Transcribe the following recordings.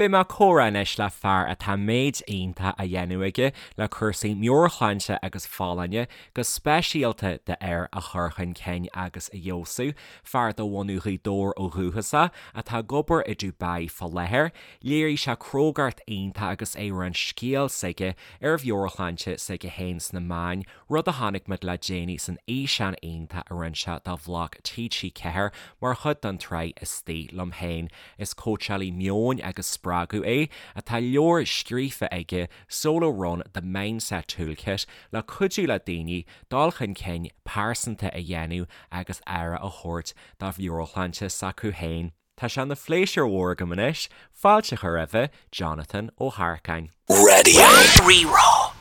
Beidh mé ag comhrá anois le fear atá méid iontach á dhéanamh aige le cúrsaí meabhairshláinte agus folláine, go speisialta d'fhir, a chur chun cinn agus a fheabhsú, fear de bhunadh Ghaoth Dobhair ó dhúchas atá ag obair i Dubai fá láthair. Léirigh sé crógacht iontach agus é ag roinnt scéal s'aige ar mheabhairshláinte s'aige féin sna meáin, rud a chonaic muid le déanaí san fhíseán iontach a rinne sé do bhlag TG4 mar chuid den tsraith Istigh Liom Féin. Is cóitseálaí meoin agus spreagadh é, atá leabhar scríofa aige, Solo Run, The Mindset Toolkit, le cuidiú le daoine dul chun cinn pearsanta a dhéanamh agus aire a thabhairt do mheabhairshláinte s'acu féin. Tá sé ina phléisiúr mhór agam anois fáilte a chur roimhe Jonathan Ó hEarcáin. Radio Rí-Rá.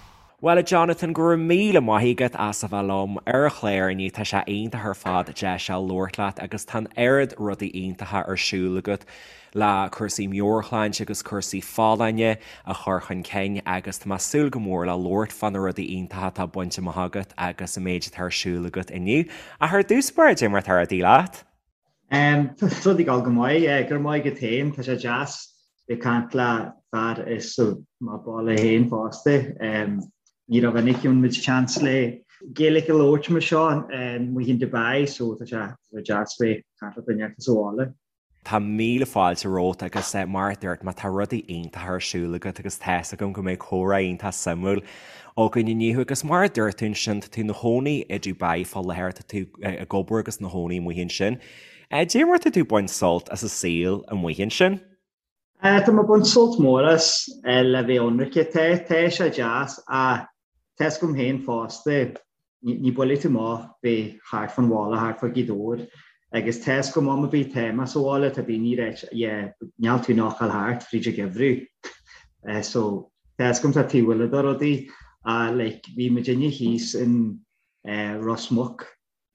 Bhuel a Jonathan, go raibh míle maith agat as a bheith liom ar an chlár inniu, tá sé iontach ar fad deis a labhairt leat agus tá an oiread rudaí iontacha ar siúl agat le cúrsaí meabhairshláinte agus cúrsaí folláine a chur chun cinn agus tá mé ag súil go mór le labhairt fá na rudaí iontacha atá bainte amach agat agus an méid atá ar siúl agat inniu. Ach ar dtús báire, cad é mar atá rudaí leat? Tá rudaí ag dul go maith. Go raibh maith agat féin. Tá sé deas bheith ag caint le fear as mo bhaile féin fosta. Ní rómhinic a fhaigheann muid chance le Gaeilge a labhairt mar seo amuigh in Dubai so tá sé deas bheith ag caint le duine as an bhaile. Tá míle fáilte romhat agus mar a dúirt mé tá rudaí iontacha ar siúl agat agus tá's agam go mbeidh comhrá iontach suimiúil againn inniu agus mar a dúirt tú ansin tá tú ina chónaí i Dubai fá láthair, tá tú ag obair agus ina chónaí amuigh ansin. Cad é mar tá tú ag baint sult as an saol amuigh ansin? Tá mé ag baint sult mór as le bheith ionraic. Tá, tá sé deas ach tá's agam féin fosta, ní buailfidh tú amach bheith thart fán bhaile, thart fá Ghaoth Dobhair agus tá's agam am ar bith tá mé sa bhaile, tá daoine ag ráit yeah níl tú nach ghabháil thart fríd an gheimhreadh. So tá's agam tá taobh eile de rudaí ach like bhí muidinne thíos in Ros Muc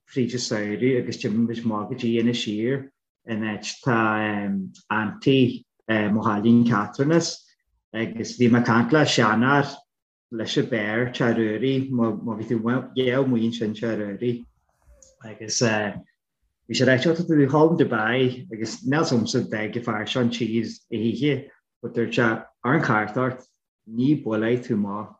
fríd an samhradh agus d'imigh muid amach go dtí Inis Oírr in áit tá auntie mo chailín Catherine as agus bhí mé ag caint le seanfhear leis an beár Teach Ruairí, má bhí tú yeah amuigh ansin Teach Ruairí agus bhí sé ag ráit, tá tú ag ghabháil in Dubai agus níl 's agamsa d'fhág an fear seo an tír a hoíche but dúirt sé ar an chairt ort ní buailfidh tú amach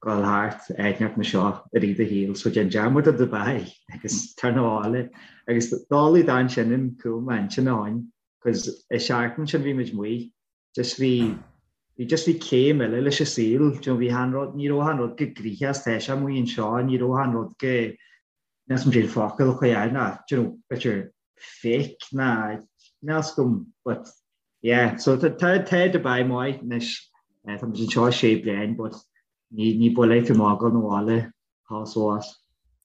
ghabháil thart áit inteacht mar seo i rith do shaoil so déan dearmad de Dubai agus tar 'na bhaile agus dálaí dan sin an cúl m'intinn a shoin cos i seachtain sin bhí muid amuigh just bhí bhí just bhí céim eile leis an saol do you know bhí achan rud ní raibh achan rud chomh gnoitheach is tá sé amuigh anseo ní raibh achan rud chomh níl 's agam cén focal a chur air ná do you know b'fhéidir fake ná níl 's agam but yeah so tá tá tá Dubai maith anois tá muid anseo sé bliain but ní ní buailfidh tú amach ghabháil 'na bhaile thall is abhus.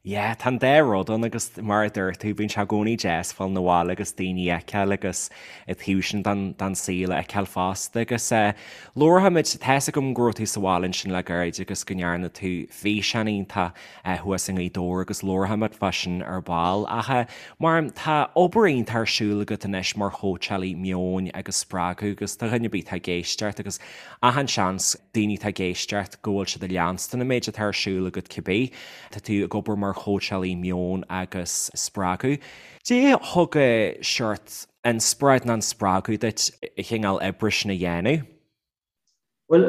Yeah, tá an dá rud ann agus mar a dúirt tú, bíonn sé i gcónaí deas fáil 'na bhaile agus daoine a fheiceáil agus an taobh sin den, den saol a fheiceáil fosta agus eh, labharfaimid, tá's agam go raibh tú sa bhaile ansin le gairid agus go ndearna tú físeán iontach thuas i nGaoth Dobhair agus labharfaimid fá sin ar ball ach mar tá obair iontach ar siúl agat anois mar chóitseálaí meoin agus spreagadh agus do dhuine ar bith atá ag éisteacht agus achan seans daoine atá ag éisteacht go bhfuil siad ag leanstan an méid atá ar siúl agat cibé. Tá tú ag obair mar chóitseálaí meoin agus spreagadh. Cad é thug seort inspioráid nó an spreagadh duit an chineál oibre sin a dhéanamh? Bhuel,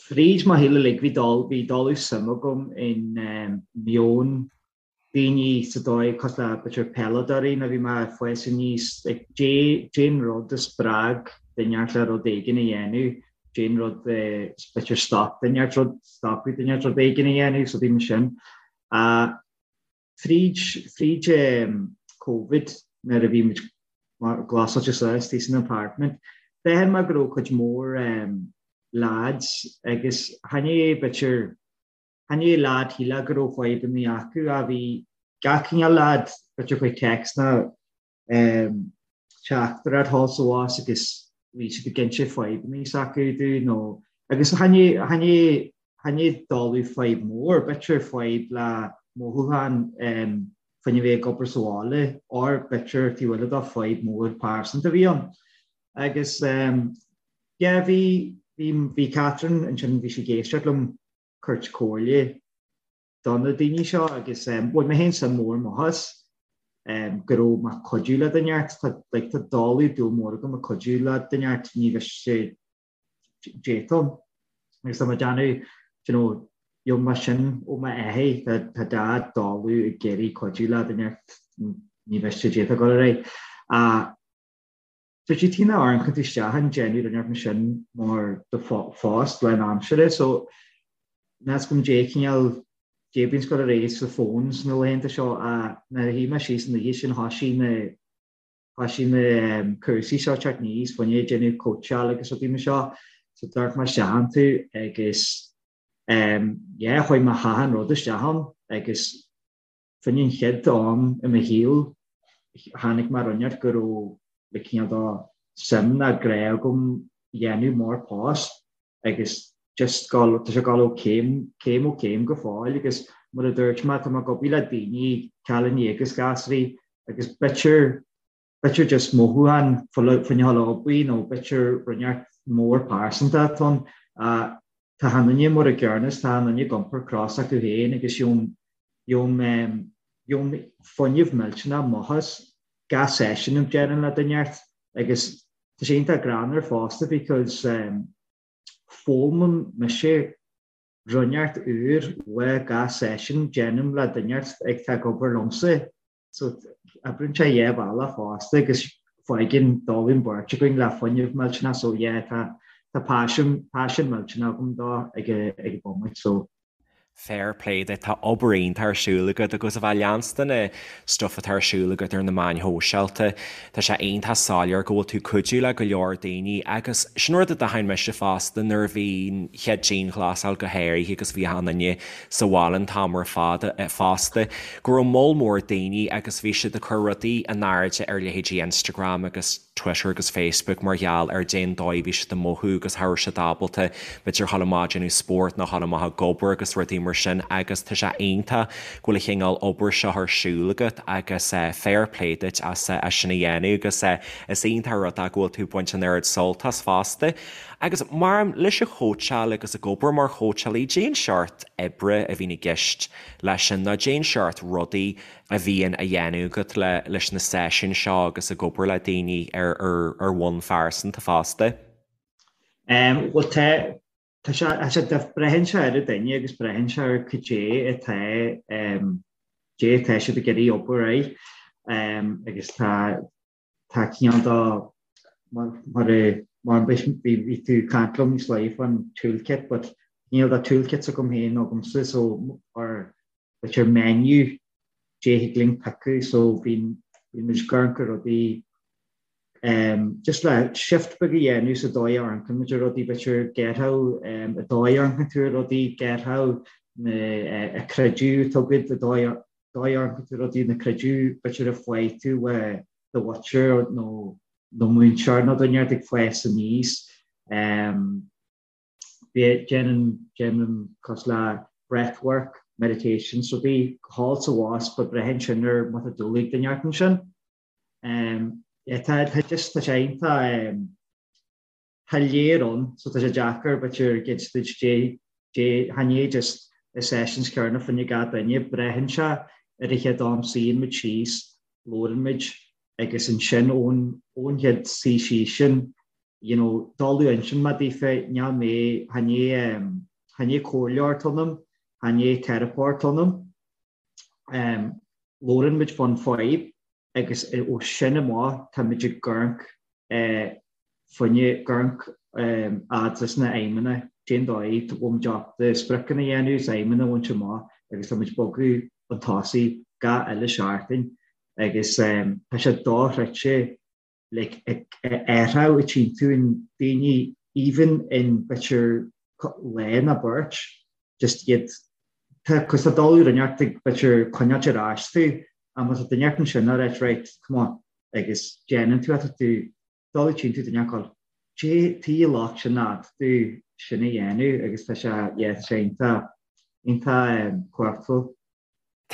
fríd mo shaol uilig bhí dul, bhí dul suim agam in meon daoine sa dóigh cosúil le b'fhéidir peileadóirí nuair a bhí mé ag fás aníos, like cén rud a spreag duine inteacht le rud éigin a dhéanamh, cén rud b'fhéidir stop duine inteacht rud, stopadh duine inteacht rud éigin a dhéanamh, so bhí mar sin. Fríd, fríd Covid nuair a bhí muid glasáilte suas istigh san apartment, d'aithin mé go raibh cuid mhór lads agus chan é b'fhéidir, chan é lad shílfeá go raibh fadhbanna acu ach bhí gach cineál lad b'fhéidir chuig text ná teachtaireacht thall is abhus agus bhí siad ag inse fadhbanna s'acu dúinn nó agus chan é chan é chan é dáileadh fadhb mór, b'fhéidir fadhb le mothúcháin faoina bheith ag obair sa bhaile or b'fhéidir taobh eile de fadhb mór pearsanta a bhí ann. Agus yeah bhí bhí bhí Catherine ansin bhí sí ag éisteacht liom tabhairt comhairle do na daoine seo agus bhain mé féin suim mór amach as go raibh mé ag cuidiú le duine inteacht. Tá like tá dáileadh dúil mór agam ag cuidiú le duine inteacht ní bheidh sé. D'fhéadfainn agus tá mé ag déanamh you know gheobhaidh mé sin ó m'athair tá tá dad dóladh ag iarraidh cuidiú le duine ní mhiste d'fhéadfadh dul ar aghaidh. Ach b'fhéidir tí na amharcann tú isteach an déanamh rinneadh mar sin mar do phost lánaimseartha so níl 's agam dé cineál dé bíonn ag dul ar aghaidh sa phone sna laethanta seo ach nuair a shuigh mé síos an oíche sin thoisigh na Thoisigh na cúrsaí seo teacht aníos, fá choinne déanamh cóitseáil agus rudaí mar seo. So d'amharc mé isteach iontu agus yeah, chuaigh mé achan rud isteach ann agus fá choinne an chéad am i mo shaol tháinig mé ar an go raibh le cineál de suim ná grá agam dhéanamh mar post. agus just gabháil, tá sé ag gabháil ó céim, céim ó céim go fóill agus mar a dúirt mé, tá mé ag obair le daoine, cailíní agus gasraí agus b'fhéidir, b'fhéidir just mothúchán fá choinne a dhul ag obair nó b'fhéidir rud inteacht mór pearsanta atá ann. Tá achan duine mar a gcéanna is tá achan duine ag iompar cros acu féin agus gheobhaim, gheobhaim, gheobhaim fuinneamh millteanach amach as gach seisiún a déanaim le duine inteacht agus Tá sé iontach greannmhar fosta because foghlaimim mise rud inteacht úr uaidh gach seisiún déanaim le duine inteacht ag tá ag obair liomsa. So oibríonn sé dhá bhealach fosta agus faigheann dul an bheirt againn le fuinneamh millteanach so yeah tá tá paisean paisean millteanach agam dó ag ag an bhomaite so Fair play duit, tá obair iontach ar siúl agat agus a bheith leanstan na stuff atá ar siúl agat ar na meáin shóisialta, tá sé iontach soiléir go bhfuil tú cuidiú le go leor daoine agus sin rud a d'aithin mise fosta nuair a bhí an chéad dianghlasáil go háirithe agus bhí achan duine sa bhaile an t-am ar fad fosta, go raibh moll mór daoine agus bhí siad ag cur rudaí in airde ar leithéidí Instagram agus Twitter agus Facebook mar gheall ar dén dóigh a bhí siad ag mothú agus cha raibh siad ábalta b'fhéidir dhul amach ag déanamh spóirt nó dhul amach ag obair agus rudaí mar sin agus tá sé iontach go bhfuil an chineál obair seo ar siúl agat agus fair play duit as sin a dhéanamh agus is iontach an rud é go bhfuil tú ag baint an oiread sult as fosta. Agus mar leis an chóitseáil agus ag obair mar chóitseálaí, dén seort oibre a bhíonn i gceist leis sin nó dén seort rudaí a bhíonn á dhéanamh agat leis na seisiúin seo agus ag obair le daoine ar ar bhonn phearsanta fosta? Bhuel tá, tá sé, tá sé, braitheann sé ar an duine agus braitheann sé ar cad é atá, cad é atá siad ag iarraidh obair air agus tá, tá cineál de, mar, mar a, mar bhí, bhí tú ag caint liom níos luaithe faoin toolkit but cineál de toolkits agam féin agamsa so ar b'fhéidir menu dé thig linn piocadh so bíonn bíonn muid ag amharc ar rudaí um just le shift beag a dhéanamh sa dóigh a amharcann muid ar rudaí b'fhéidir get-how um an dóigh a amharcann tú ar rudaí get-how na uh, a creideamh atá agat an dóigh dóigh a amharcann tú ar rudaí na creideamh b'fhéidir a fuair tú ó do mhuintir nó nó múinteoir nó duine ag fás aníos um Déanaim, déanaim cosúil le breathwork, meditations, rudaí thall 's abhus but braitheann sin ar má tá dúil ag duine ort ansin. Yeah, tá, tá just, tá sé iontach, tá léar ann so tá sé deacair b'fhéidir gid duit dé, dé, chan é just na sessions céanna fá choinne gach duine, braitheann sé ar an chéad am suíonn muid síos, labhrann muid agus ansin ón, ón chéad suí síos sin you know, dul ansin mar daofa, níl mé, chan é, chan é comhairleoir atá ionam, chan é teiripeoir atá ionam. Um, labhrann muid fán fadhb agus ó sin amach tá muid ag amharc eh, fá choinne, ag amharc um, fhad leis na aidhmeanna, cén dóigh a bhfuil muid ábalta spriocanna a dhéanamh is aidhmeanna a bhaint amach agus tá muid bogadh chun tosaigh gach uile seachtain agus um, tá sé dochreidte like athrú a tchíonn tú in daoine even in b'fhéidir lá nó beirt just iad tá cos tá dul ar neart ag b'fhéidir coinneáilt ar ais tú ach má tá duine inteacht ansin ag ráit right come on agus déanann tú tá tú dul tchíonn tú duine ag dé tí locht sin ná tú sin a dhéanamh agus tá sé yeah tá sé iontach iontach cumhachtúil.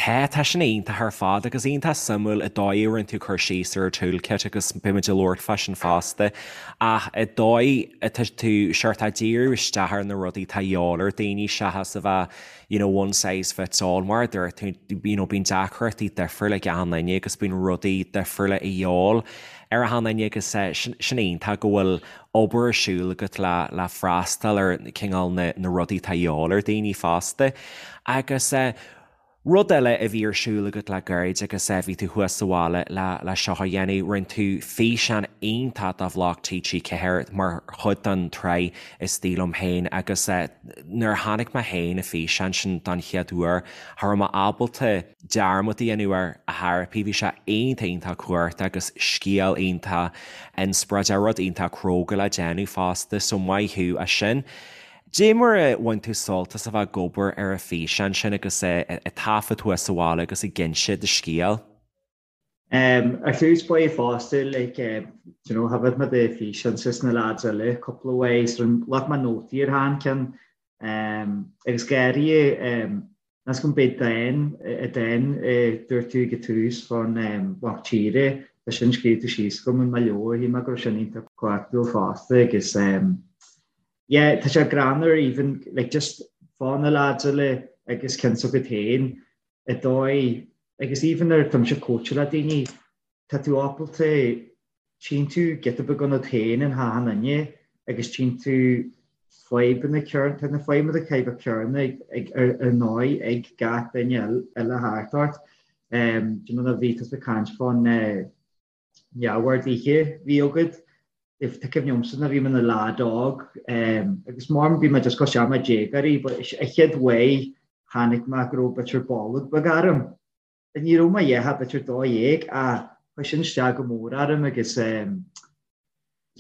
Tá, tá sin iontach ar fad agus iontach suimiúil an dóigh a rinne tú cur síos ar an toolkit agus beimid ag labhairt fá sin fosta ach an dóigh atá tú seort ag díriú isteach ar na rudaí atá a dhíobháil ar daoine seachas a bheith you know one size fits all mar a dúirt tú you know bíonn deacrachtaí difriúla ag achan duine agus bíonn rudaí difriúla a dhíobháil ar achan duine agus sin iontach go bhfuil obair ar siúl agat le le freastal ar cineál na na rudaí atá a dhíobháil ar daoine fosta. Agus rud eile a bhí ar siúl agat le gairid agus bhí tú thuas sa bhaile le le seo a dhéanamh, rinne tú físeán iontach do bhloc TG4 mar chuid den tsraith Istigh Liom Féin agus nuair a chonaic mé féin an físeán sin don chéad uair, cha raibh mé ábalta dearmad a dhéanamh air a theiripí. Bhí sé iontach iontach cumhachtach agus scéal iontach inspioráideach, rud iontach cróga le déanamh fosta, so maith thú as sin. Dé mar a bhain tú sult as a bheith ag obair ar an físeán sin agus ag taifead thuas sa bhaile agus ag inse do scéil? Ar tús ba fosta like you know thaifead mé do físeán is na lads eile cúpla uair so ghlac mé nótaí ar achan ceann agus gáirí Meas go mb'é dán a dán a dúirt tú ag an tús fán mhac tíre, tá sin scríofa síos agam i mo leabhar, shíl mé go raibh sin iontach cumhachtúil fosta agus yeah tá sé greannmhar even like just fá na lads eile agus cionn s'agat féin i dóigh agus even nuair atá mise ag cóitseáil le daoine tá tú ábalta tchíonn tú giota beag ionat féin in achan duine agus tchíonn tú fadhbanna céanna, tá na fadhbanna caithfidh céanna ag ar ndóigh ag gach duine eile thart ort. Do you know nuair a bhí tusa ag caint fán neamhorduithe a bhí agat, tá cuimhne agamsa nuair a bhí mé ina leaid óg agus mar bhí mé just cosúil le déagóirí but an chéad uair chonaic mé go raibh b'fhéidir bolg beag orm. Ní raibh mé a dhath ach b'fhéidir 12 ach chuir sin isteach go mór orm agus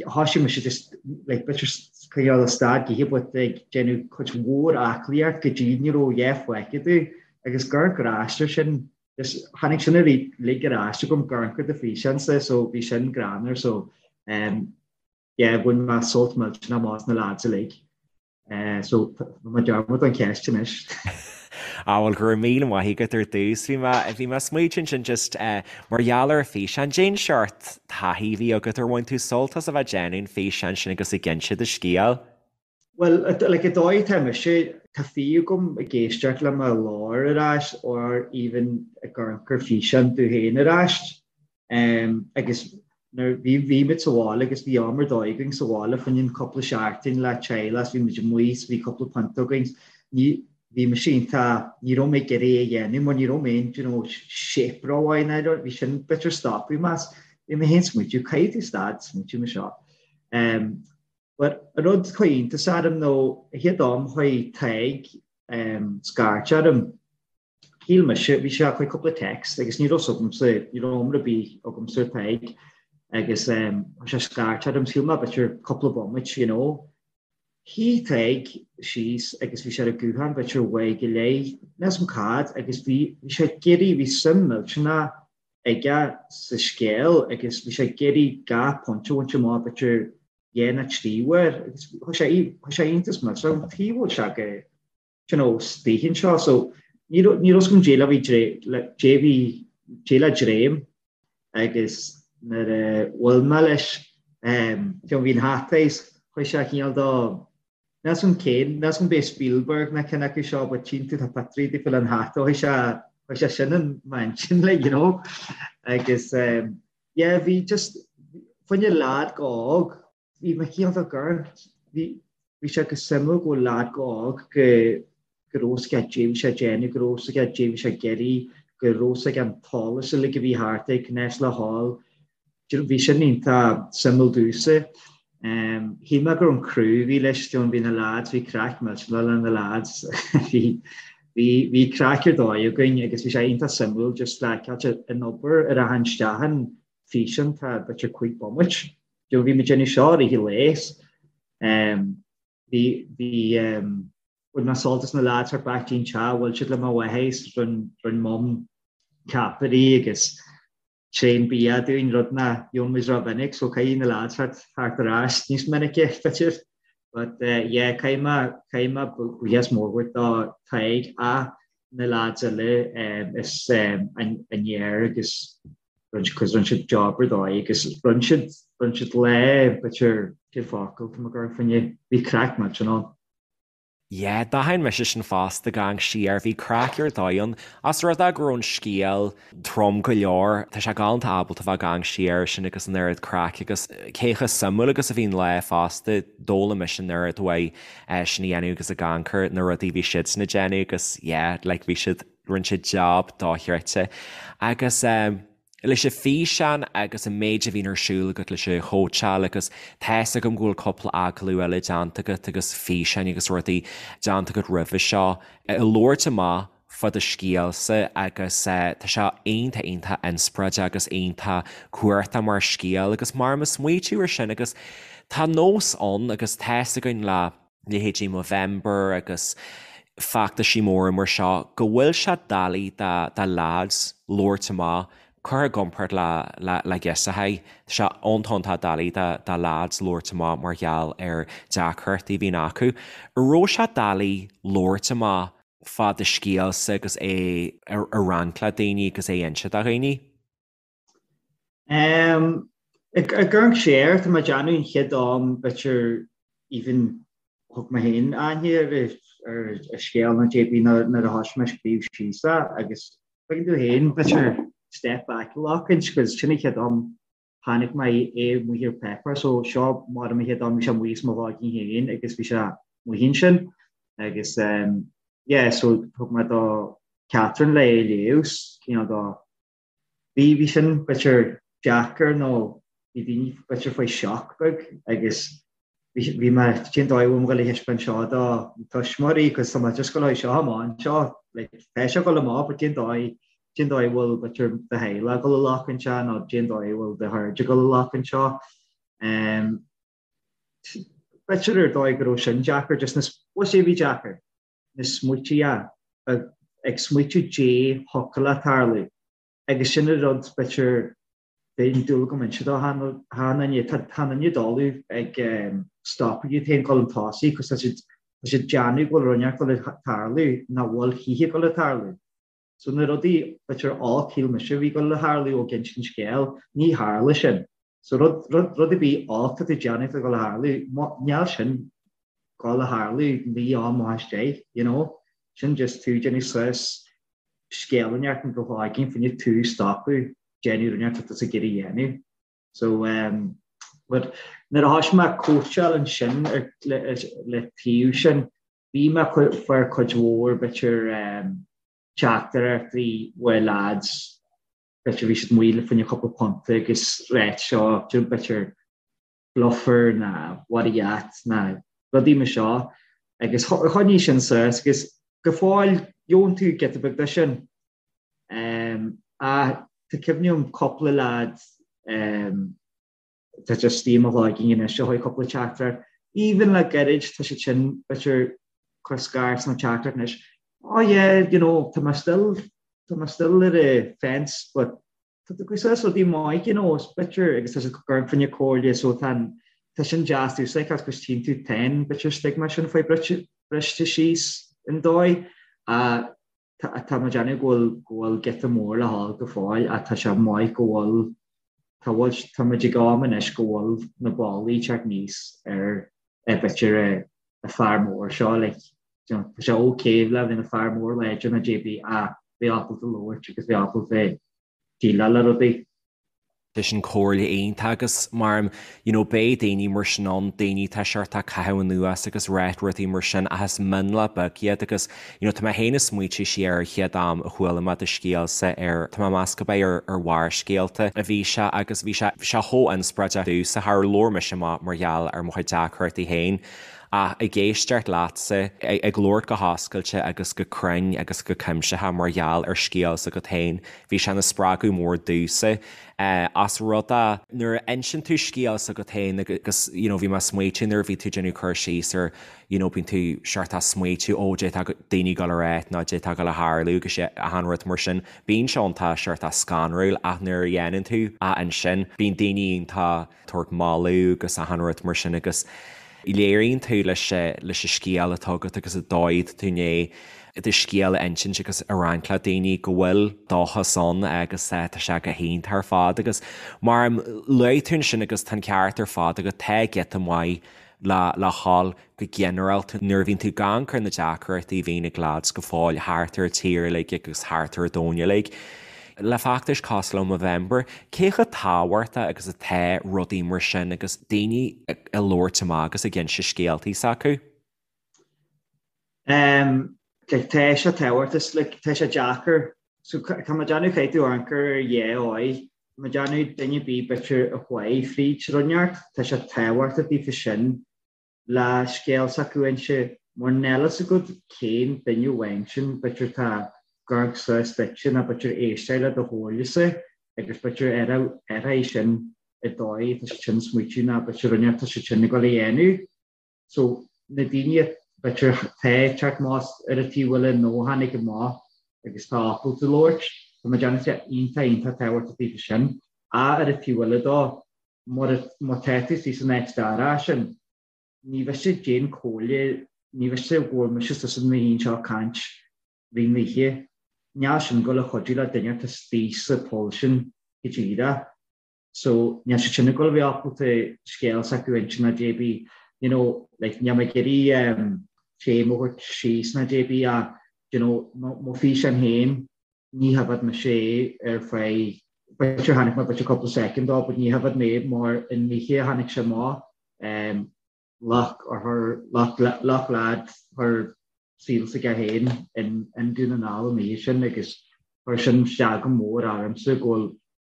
thoisigh mise just like b'fhéidir coinneáil a stad githe but ag déanamh cuid mhór aclaíocht go dtí ní raibh a dhath fágtha domh agus ag amharc ar ais air sin just tháinig sin uilig ar ais agam ag amharc ar do físeán-sa so bhí sin greannmhar so yeah bhain mé sult millteanach amach as na lads uilig. So tá mé dearmad an cheist anois. Á bhuel go raibh míle maith agat ar dtús. Bhí mé bhí mé ag smaoitiú ansin just mar gheall ar an físeán. Cén seort taithí a bhí agat ar bhain tú sult as a bheith ag déanamh an físeáin sin agus ag inse do scéal? Bhuel like an dóigh atá mise, tá fiú agam ag éisteacht le mo ghlór ar ais or even ag amharc ar físeán domh féin ar ais. Agus nuair bhí bhí muid sa bhaile agus bhí am ar dóigh againn sa bhaile fá choinne cúpla seachtain le teaghlach bhí muid amuigh is bhí cúpla punt againn ní bhí mise iontach ní raibh mé ag iarraidh é a dhéanamh mar ní raibh mé in you know shape rómhaith ná bhí sin b'fhéidir stopadh mé as bhí mé féin smaoitiú caithfidh tú stad smaoitiú mar seo. Um, but an rud chuir iontas orm nó an chéad am chuir Tadhg um, scairt orm Shíl mise, bhí sé chuir cúpla text agus ní raibh 's agamsa, ní raibh iomra ar bith agamsa ar Tadhg agus chuir sé scairt orm, shíl mé b'fhéidir cúpla bomaite, you know. Shuigh Tadhg síos agus bhí sé ar an guthán b'fhéidir uair go leith, níl 's agam cad, agus bhí, bhí sé ag iarraidh, bhí suim millteanach aige sa scéal agus bhí sé ag iarraidh gach pointe a bhaint amach b'fhéidir dhá nó trí uair agus chuir sé, chuir sé iontas millteanach orm, tuige a bhfuil sé go you know, istigh anseo. So ní raibh ní raibh 's agam dé le bhí le dé bhí dé le dréim agus nuair a bhuail mé leis um, you know, bhí an hata is chuir sé cineál dó níl 's agam cén níl 's agam b'é Spielberg ná cinn acu seo but tchíonn tú tá pictiúirí daofa le an hata chuir sé chuir sé sin in m'intinn like, you know agus um, yeah bhí just fá choinne leaid chomh hóg Bhí mé cineál de gur, bhí, bhí sé go suimiúil go bhfuil leaid chomh hóg go, go raibh 's aige dé bhí sé ag déanamh, go raibh 's aige dé bhí sé ag iarraidh, go raibh 's aige an t-eolas uilig a bhí thart air, conas le dhul. Do you know, bhí sin iontach suimiúil domhsa. Shíl mé go raibh an crew a bhí leis, do you know, bhí na lads, bhí craic millteanach le na lads, bhí, bhí, bhí craic ar dóigh againn agus bhí sé iontach suimiúil just le, ceart, an obair a rachann isteach in físeán, tá b'fhéidir cúig bomaite. Do bhí muid déanamh seo i rith an lae. Bhí, bhí, bhain mé sult as na lads thart back dtí'n teach, bhuail siad le mo mháthair is rinn, rinn mum ceapairí agus tréan bia dúinn, rud nach gheobhann muid rómhinic, so caithfidh na lads thart, thart ar ais níos minice, b'fhéidir. But yeah, caithfidh mé, caithfidh mé buíochas mór a thabhairt do Tadhg. Na lads eile is an fhear agus cos rinne siad job ar dóigh agus rinne siad rinne siad lá b'fhéidir cén focal tá mé ag amharc fá choinne bhí craic millteanach ann. Yeah, d'aithin mise sin fosta ag amharc siar, bhí craic ar dóigh ann. Os rud é go raibh an scéal trom go leor, tá sé galánta ábalta bheith ag amharc siar air sin agus an oiread craic agus cé chomh suimiúil agus a bhí an lá fosta, d'fhoghlaim mise an oiread uaidh sin a dhéanamh agus ag amharc ar na rudaí a bhí siadsan ag déanamh agus yeah, like bhí siad, rinne siad job dochreidte. Agus eh, leis an físeán agus an méid a bhíonn ar siúl agat leis an chóitseáil agus tá's agam go bhfuil cúpla agallamh eile déanta agat agus físeáin agus rudaí déanta agat roimhe seo ag labhairt amach fá do scéalsa agus tá sé iontach iontach inspioráideach agus iontach cumhachtach mar scéal agus mar mo smaoitiú ar sin agus tá nós ann agus tá's againn le leithéidí Movember agus feachtaisí móra mar seo, go bhfuil sé doiligh do leaids labhairt amach, curtha i gcomparáid le le girseachaí. Tá sé iontach iontach doiligh do leaids labhairt amach mar gheall ar deacrachtaí a bhíonn acu. An raibh sé doiligh labhairt amach fá do scéalsa agus é a roinnt le daoine agus é a inse do dhaoine? Ag amharc siar, tá mé ag déanamh an chéad am b'fhéidir even thug mé féin aithne ar ar an scéal nó cibé nuair a thoisigh mé ag scríobh síos é agus tuigeann tú féin b'fhéidir step back a ghlacaint cos sin an chéad am chonaic mé é amuigh ar paper so seo mar an chéad am bhí sé amuigh as mo chloigeann féin agus bhí sé amuigh ansin agus yeah so thug mé do Catherine le é a léamh cineál do Bhí, bhí sin b'fhéidir deacair nó bhí daoine b'fhéidir faoi shock beag agus bhí, bhí mé, cén dóigh a bhfuil mé ag dul a thaispeáint seo do na tuismitheoirí cos tá mé just ag dul seo amach anseo, like tá sé ag dul amach but cén dóigh, cén dóigh a bhfuil b'fhéidir do theaghlach ag dul a ghlacadh seo nó cén dóigh a bhfuil do chairde ag dul a ghlacadh seo. Um, b'fhéidir ar dóigh go raibh sin deacair, just na, bhuel sé bhí deacair. na smaoití ag smaoitiú dé thiocfadh le tarlú agus sin an rud b'fhéidir bheadh dúil agam inse do achan duine tá achan duine doiligh ag stopadh iad féin dul chun tosaigh cos tá siad tá siad déanamh go bhfuil rud inteacht ag dul a tarlú nach bhfuil choíche ag dul a tarlú. So na rudaí b'fhéidir olc shíl mise a bhí ag dul a tharlú ó ag insint scéil, ní tharla sin. So rud, rud, rud ar bith olc atá tú déanamh atá ag dul a tharlú, níl sin ag dul a tharlú naoi am amach as deich, you know. Sin just tú déanamh suas scéal inteacht in do chloigeann fá choinne tú stopadh déanamh rud inteacht atá tusa ag iarraidh a dhéanamh. So um, but nuair a thoisigh mé cóitseáil ansin ar, le, le taobh sin, Bhí mé fuair cuid mhór b'fhéidir teachtaireachtaí uaidh lads b'fhéidir bhí siad amuigh le fá choinne cúpla punta agus ráit seo b'fhéidir bluffer ná what a yat ná rudaí mar seo agus choinnigh sin suas agus go fóill gheobhann tú giota beag de sin. Ach tá cuimhne agam cúpla lad tá just i mo chloigeann anois a chuir cúpla teachtaireacht. Even le gairid tá siad sin b'fhéidir cur scairt nó teachtaireacht anois. Oh yeah, you know, tá mé still, tá mé still ar the fence but tá tú ag suas rudaí maith, you know, is b'fhéidir agus tá siad ag cur fá choinne comhairle so tá an, tá sin deas domhsa cos tchíonn tú tá an b'fhéidir stigma sin faoi briste síos an dóigh. Tá mé ag déanamh go bhfuil go bhfuil giota mór le dhul go fóill ach tá sé maith go bhfuil tá bhfuil tá muid ag am anois go bhfuil na ballaí ag teacht aníos ar ar b'fhéidir an fear mór seo like you know tá sé ok le bheith ina fear mór láidir nó cibé ach bheith ábalta labhairt agus bheith ábalta déileáil le rudaí. Tá sin comhairle iontach agus mar you know beidh daoine mar sin ann, daoine atá seort ag caitheamh anuas agus ráit rudaí mar sin ach is mionlach beag iad agus you know tá mé féin ag smaoitiú siar ar an chéad am a chuala mé do scéalsa ar, tá mé ag meas gurb é ar ar Bharrscéalta a bhí sé agus bhí sé bhí sé chomh inspioráideach domhsa, char labhair mise amach mar gheall ar mo chuid deacrachtaí féin ach ag éisteacht leatsa ag labhairt go hoscailte agus go cruinn agus go cuimsitheach mar gheall ar scéal s'agat féin Bhí sé ina spreagadh mór domhsa as rud é nuair a inseann tú scéal s'agat féin agus you know bhí mé ag smaoitiú nuair a bhí tú ag déanamh cur síos ar you know bíonn tú seort ag smaoitiú ó d'fhéadfadh daoine dul a ráit nó d'fhéadfadh dul a tharlú agus achan rud mar sin. Bíonn sé iontach seort scanrúil ach nuair a dhéanann tú é ansin bíonn daoine iontach tabhairt moladh agus achan rud mar sin agus léiríonn tú leis leis an scéal atá agat agus an dóigh atá tú i ndiaidh. do scéal a insint agus a roinnt le daoine go bhfuil dóchas ann agus tá sé go hiontach ar fad agus mar a luaigh tú ansin agus tá an ceart ar fad agat, tá giota maith le le dhul go ginearálta nuair a bhíonn tú ag amharc ar na deacrachtaí a bhíonn ag leaids go fóill thart ar an tír uilig agus thart ar an domhan uilig. Le feachtais cosúil le Movember, cé chomh tábhachtach agus atá rudaí mar sin agus daoine ag labhairt amach agus ag inse scéaltaí s'acu? Um, like, tá sé tábhachtach, like, tá sé deacair. So, tá mé ag déanamh caithfidh tú amharc ar dhá dhóigh. Tá mé ag déanamh duine ar bith b'fhéidir a chuaigh fríd rud inteacht, tá sé tábhachtach daofa sin le scéal s'acu a inse, mar níl a fhios agat cén duine amháin sin, b'fhéidir tá ag amharc suas duitse nó b'fhéidir éisteacht le do chomhairlese agus b'fhéidir ar é sin an dóigh atá siad sin smaoitiú nó b'fhéidir rud inteacht atá siad sin ag dul a dhéanamh. So, na daoine b'fhéidir tá ag teacht amach ar an taobh eile nó a tháinig amach agus tá ábalta labhairt, tá mé ag déanamh sé iontach iontach tábhachtach daofa sin. Ach ar an taobh eile dó, mura má tá tú istigh san áit dorcha sin, ní mhiste cén comhairle, ní mhiste go bhfuil mise istigh san oíche seo ag caint rith na hoíche. Níl sin ag dul a chuidiú le duine atá istigh sa poll sin go díreach. So, níl siad sin ag dul a bheith ábalta scéal s'acu a inse ná cibé, you know, like, níl mé ag iarraidh um, féim a thabhairt síos ná cibé ach, you know, mo físeán féin, ní thaifead mise é ar feadh, b'fhéidir chonaic mé b'fhéidir cúpla soicind dó, but ní thaifead mé mar an oíche a tháinig sé amach, um, luck or her, luck, luck lad, chuir saol s'aige féin in, in Dún na nGall an oíche sin agus chuir sin isteach go mór ormsa go bhfuil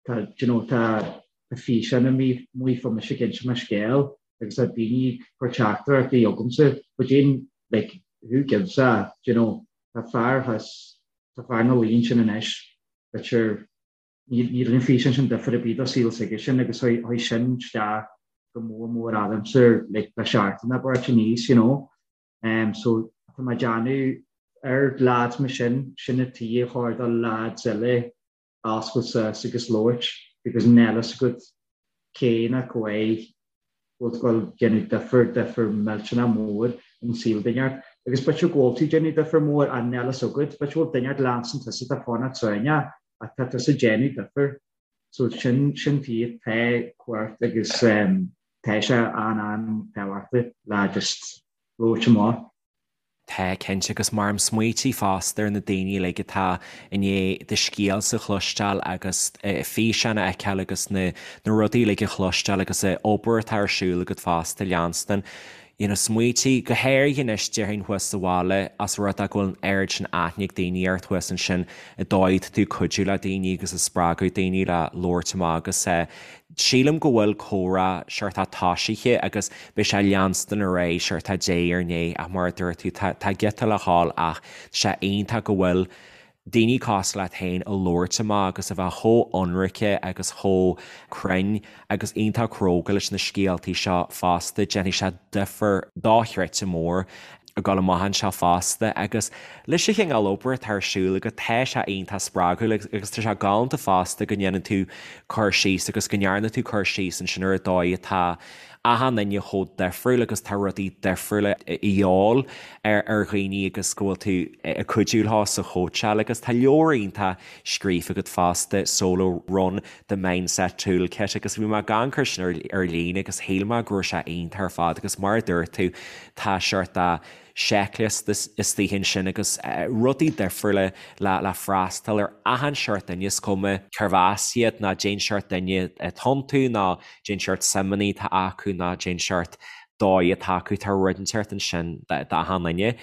tá, do you know, tá físeán amuigh fá mise ag inse mo scéal agus tá daoine ag cur teachtaireachtaí chugamsa, but Jane, like, who gives a, do you know, tá fear thuas, tá fear ina luí ansin anois, b'fhéidir, ní rinne an físeán sin difear ar bith do saol s'aige sin agus chuaigh sin isteach go mór mór ormsa, like, le seachtain abair aníos, you know. Um, so, tá mé ag déanamh ar lads mar sin, sin an tuige ar chóir do lads eile oscailt suas agus labhairt because níl a fhios agat cé ná cá bhfuil tú ag dul déanamh difear, difear millteanach mór in saol duine inteacht. Agus b'fhéidir go bhfuil tú ag déanamh difear mór ach níl a fhios agat, b'fhéidir go bhfuil duine inteacht leanstan tusa atá fanacht sáinneach ach tá tusa ag déanamh difear. So sin, sin tuige tá cumhacht agus tá sé an-an-tábhachtach le just labhairt amach. Tá, cinnte, agus mar a smaoitigh fosta ar na daoine uilig atá i ndiaidh do scéalsa a chloisteáil agus físeáin a fheiceáil agus na rudaí uilig a chloisteáil agus an obair atá ar siúl agat fosta, leanstan, you know, smaoitigh, go háirithe anois déarfainn thuas sa bhaile, as rud é go bhfuil an oiread sin aithne ag daoine ort thuas ansin, an dóigh atá tú ag cuidiú le daoine agus ag spreagadh daoine le labhairt amach agus Sílim go bhfuil comhrá seort tosaithe agus beidh sé ag leanstan ar aghaidh seort diaidh ar ndiaidh ach mar a dúirt tú tá tá giota le dhul ach tá sé iontach go bhfuil daoine cosúil leat féin ag labhairt amach agus a bheith chomh ionraice agus chomh cruinn agus iontach cróga leis na scéaltaí seo fosta. Déanfaidh sé difear dochreidte mór ag dul amach anseo fosta agus leis an chineál obair atá ar siúl agat tá sé iontach spreagúil agus tá sé galánta fosta go ndéanann tú cur síos agus go ndearna tú cur síos ansin ar an dóigh atá achan duine chomh difriúil agus tá rudaí difriúla a dhíobháil ar ar dhaoine agus go bhfuil tú ag cuidiú leo sa chóitseáil agus tá leabhar iontach scríofa agat fosta, Solo Run, The Mindset Toolkit agus bhí mé ag amharc air sin ar líne agus shíl mé go raibh sé iontach ar fad agus mar a dúirt tú tá seort de seicliosta istigh ansin agus rudaí difriúla le le freastal ar achan seort duine is cuma cérbh as iad ná cén seort duine atá iontu ná cén seort suimeanna atá acu ná cén seort dóigh atá acu tá rud inteacht ansin d'achan duine.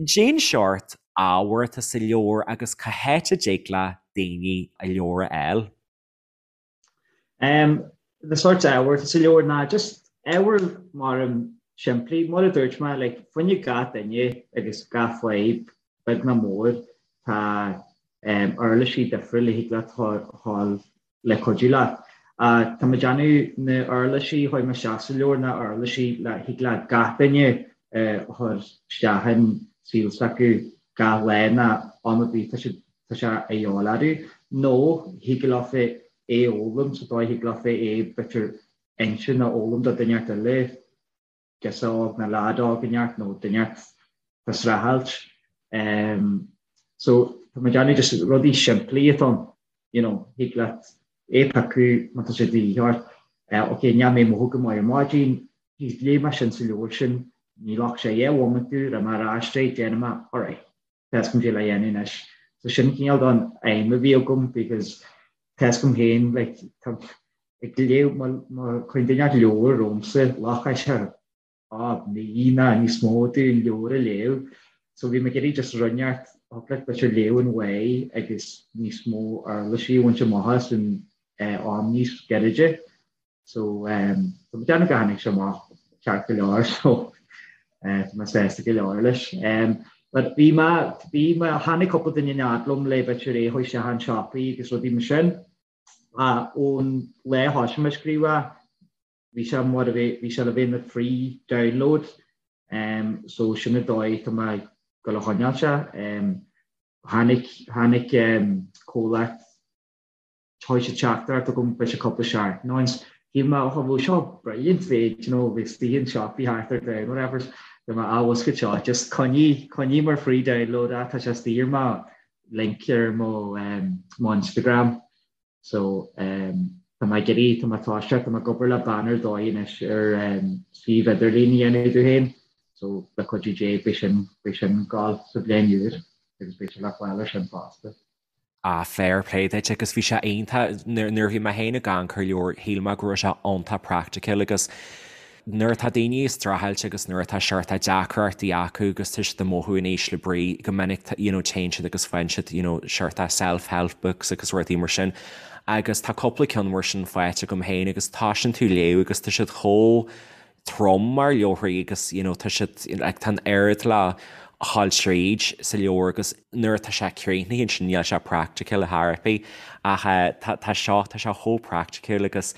Cén seort ábhar atá sa leabhar agus cá háit a dtig le daoine an leabhar a fháil? Um, na sort ábhar atá sa leabhar ná just ábhar mar an simplí, mar a dúirt mé, like, fá choinne gach duine agus gach fadhb, beag ná mór, tá um, uirlisí difriúla a thig leat fáil le cuidiú leat. Tá mé ag déanamh na uirlisí a chuir mé isteach sa leabhar ná uirlisí le thig le gach duine a chur isteach in saol s'acu gach lá ná am ar bith tá siad tá sé a dhíobháil orthu nó thig leofa é a fhoghlaim sa dóigh thig leofa é b'fhéidir inse nó fhoghlaim do duine inteacht eile. girseach óg nó leaid óg inteacht nó duine inteacht tá ag streachailt. So tá mé ag déanamh just rudaí simplí atá ann, you know, thig leat é a phiocadh má tá sé de dhíth ort. Ok, níl mé ag mothú go maith ar maidin, geez, léigh mé sin sa leabhar sin, ní ghlac sé 10 bhomaite domh, raibh mé ar ais é, déanfaidh mé, alright, tá a fhios agam caidé le dhéanamh anois. So sin cineál don aidhm a bhí agam because tá a fhios agam féin, like, tá ag léamh, má chuireann duine leabhar romhamsa, ghlacfadh sé ah, mí nó níos mó domh an leabhar a léamh. So bhí mé ag iarraidh just rud inteacht a thig leat b'fhéidir léamh an uaidh agus níos mó uirlisí a bhaint amach as in am níos gairide. So tá mé ag déanamh go tháinig sé amach ceart go leor so tá mé sásta go leor leis. But bhí mé, bhí mé, tháinig cúpla duine in fhad liom le b'fhéidir é a chur isteach in siopaí agus rudaí mar sin. Ach ón lá a thosaigh mé ag scríobh é, bhí sé mar a bhí, bhí sé le bheith ina free download so sin an dóigh tá mé ag dul a choinneáil sé. Tháinig, tháinig comhlacht Chuir siad teachtaireacht chugam b'fhéidir cúpla seachtain ó shin. Shíl mé, oh bhuel seo brilliant bhí, you know, bhí istigh in siopaí thart ar domhan whatever. Bhí mé, ah bhfuil seo, just coinnigh, coinnigh mar free download é, tá sé istigh ar mo link ar mo, mo Instagram. So, tá mé ag iarraidh, tá mé toiseacht, tá mé ag obair le bean ar dóigh anois ar suíomh idirlín a dhéanamh domh féin. So, le cuidiú Dé, beidh sin, beidh sin ag gabháil sa bhliain úr agus beidh sé le fáil ar sin fosta. Ah fair play duit agus bhí sé iontach, nuair a bhí mé féin ag amharc ar an leabhar shíl mé go raibh sé iontach practical agus nuair atá daoine ag streachailt agus nuair atá seort deacrachtaí acu agus tá siad ag mothú in ísle brí go minic you know téann siad agus faigheann siad you know seort self-help books agus rudaí mar sin agus tá cúpla ceann mar sin faighte agam féin agus tosaíonn tú léamh agus tá siad chomh trom mar leabharthaí agus you know tá siad like tá an oiread le dhul tríd sa leabhar agus nuair atá sé críochnaithe ansin níl sé practical ar chor ar bith ach eh tá tá seo tá sé chomh practical agus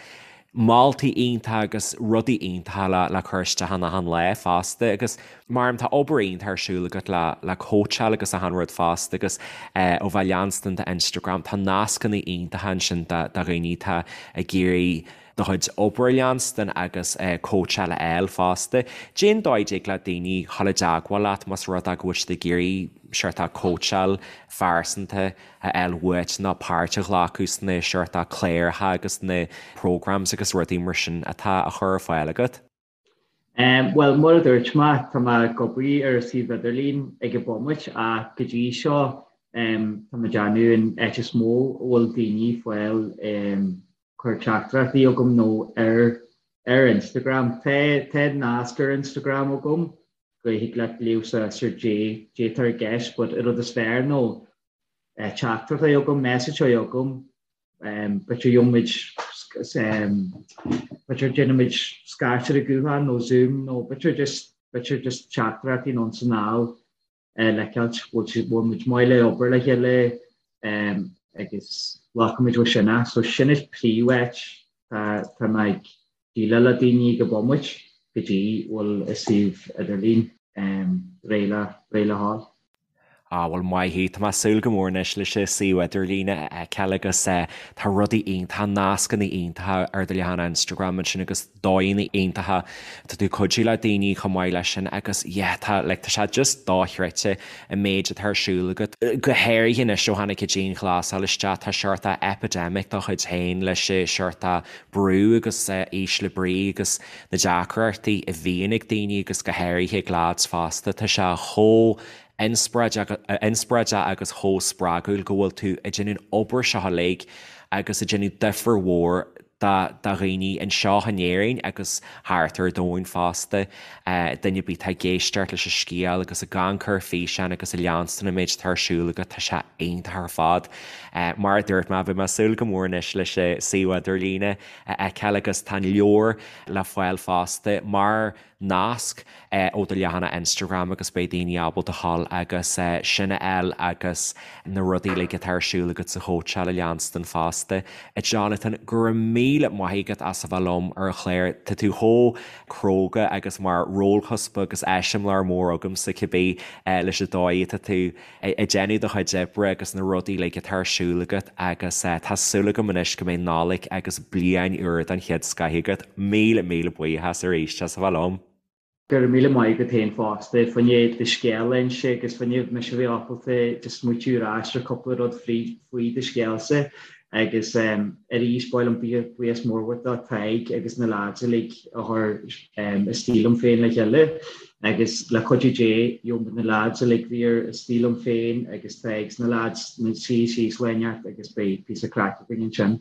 moltaí iontacha agus rudaí iontacha le le cur isteach in achan lá fosta agus mar tá obair iontach ar siúl agat le le cóitseáil agus achan rud fosta agus eh ó bheith leanstan d'Instagram tá nascanna iontacha ansin do do dhaoine atá ag iarraidh do chuid obair a leanstan agus cóitseáil a fháil fosta. Cén dóigh a dtig le daoine dhul i dteagmháil leat más rud é go bhfuil siad ag iarraidh seort cóitseáil phearsanta a fháil uait nó páirt a ghlacadh sna seort cláracha agus na programs agus rudaí mar sin atá á chur ar fáil agat? Bhuel, mar a dúirt mé, tá mé ag obair ar an suíomh idirlín ag an bomaite ach go dtí seo tá mé ag déanamh an áit is mó a bhfuil daoine ag fáil cur teachtaireachtaí chugam ná ar ar Instagram. Tá tá nasc ar Instagram agam go thig leat léamh suas ar caidé atá i gceist but an rud is fearr ná teachtaireacht a chur chugam, message a chur chugam B'fhéidir gheobhaimid b'fhéidir déanfaimid scairt ar an ghuthán nó Zoom nó b'fhéidir just b'fhéidir just teachtaireachtaí anonn is anall le feiceáilt bhfuil bhfuil muid maith le obair le chéile agus glacfaimid ó sin é. So sin is príomháit tá tá mé ag déileáil le daoine ag an bomaite go dtí bhfuil an suíomh idirlín réidh le réidh le dhul. Á, bhuel, maith thú. Tá mé ag súil go mór anois leis an suíomh idirlín a fheiceáil agus tá rudaí iontacha, nascanna iontacha ar do leathanach Instagram ansin agus dóigheanna iontacha. Tá tú ag cuidiú le daoine chomh maith leis sin agus yeah, tá, like, tá sé just dochreidte an méid atá ar siúl agat. Go háirithe anois ó tháinig an dianghlasáil isteach, tá seort epidemic dá chuid féin leis an seort brú agus ísle brí agus na deacrachtaí a bhíonn ag daoine agus go háirithe ag lads fosta. Tá sé chomh inspioráideach agus chomh spreagúil go bhfuil tú ag déanamh an obair seo uilig agus ag déanamh difear mhór do dhaoine anseo in Éirinn agus thart ar domhan fosta. Duine ar bith atá ag éisteacht leis an scéal agus ag amharc ar físeán agus ag leanstan an méid atá ar siúl agat, tá sé iontach ar fad. Mar a dúirt mé, beidh mé ag súil go mór anois leis an suíomh idirlíne a fheiceáil agus tá an leabhar le fáil fosta mar nasc ó do leathanach Instagram agus beidh daoine ábalta dhul agus sin a fháil agus na rudaí uilig atá ar siúl agat sa chóitseáil a leanstan fosta. A Jonathan, go raibh míle maith agat as a bheith liom ar an chlár. Tá tú chomh cróga agus mar rólchuspa agus eiseamláir mór agamsa cibé leis an dóigh atá tú ag déanamh do chuid oibre agus na rudaí uilig atá ar siúl agat agus tá súil agam anois go mbeidh Nollaig agus bliain úr den chéad scoith agat. Míle míle buíochas arís as a bheith liom. Go raibh míle maith agat féin fosta, fá choinne do scéal a inse agus fá choinne mise a bheith ábalta just smaoitiú ar ais ar cúpla rud faoi do scéalsa agus arís ba mhaith liom buíochas mór a thabhairt do Tadhg agus na lads uilig a chuir Istigh Liom Féin le chéile agus le cuidiú Dé gheobhaidh na lads uilig a bhí ar Istigh Liom Féin agus Tadhg 's na lads na suí síos lá inteacht agus beidh píosa craic againn ansin.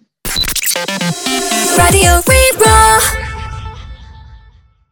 Raidió Rí-Rá.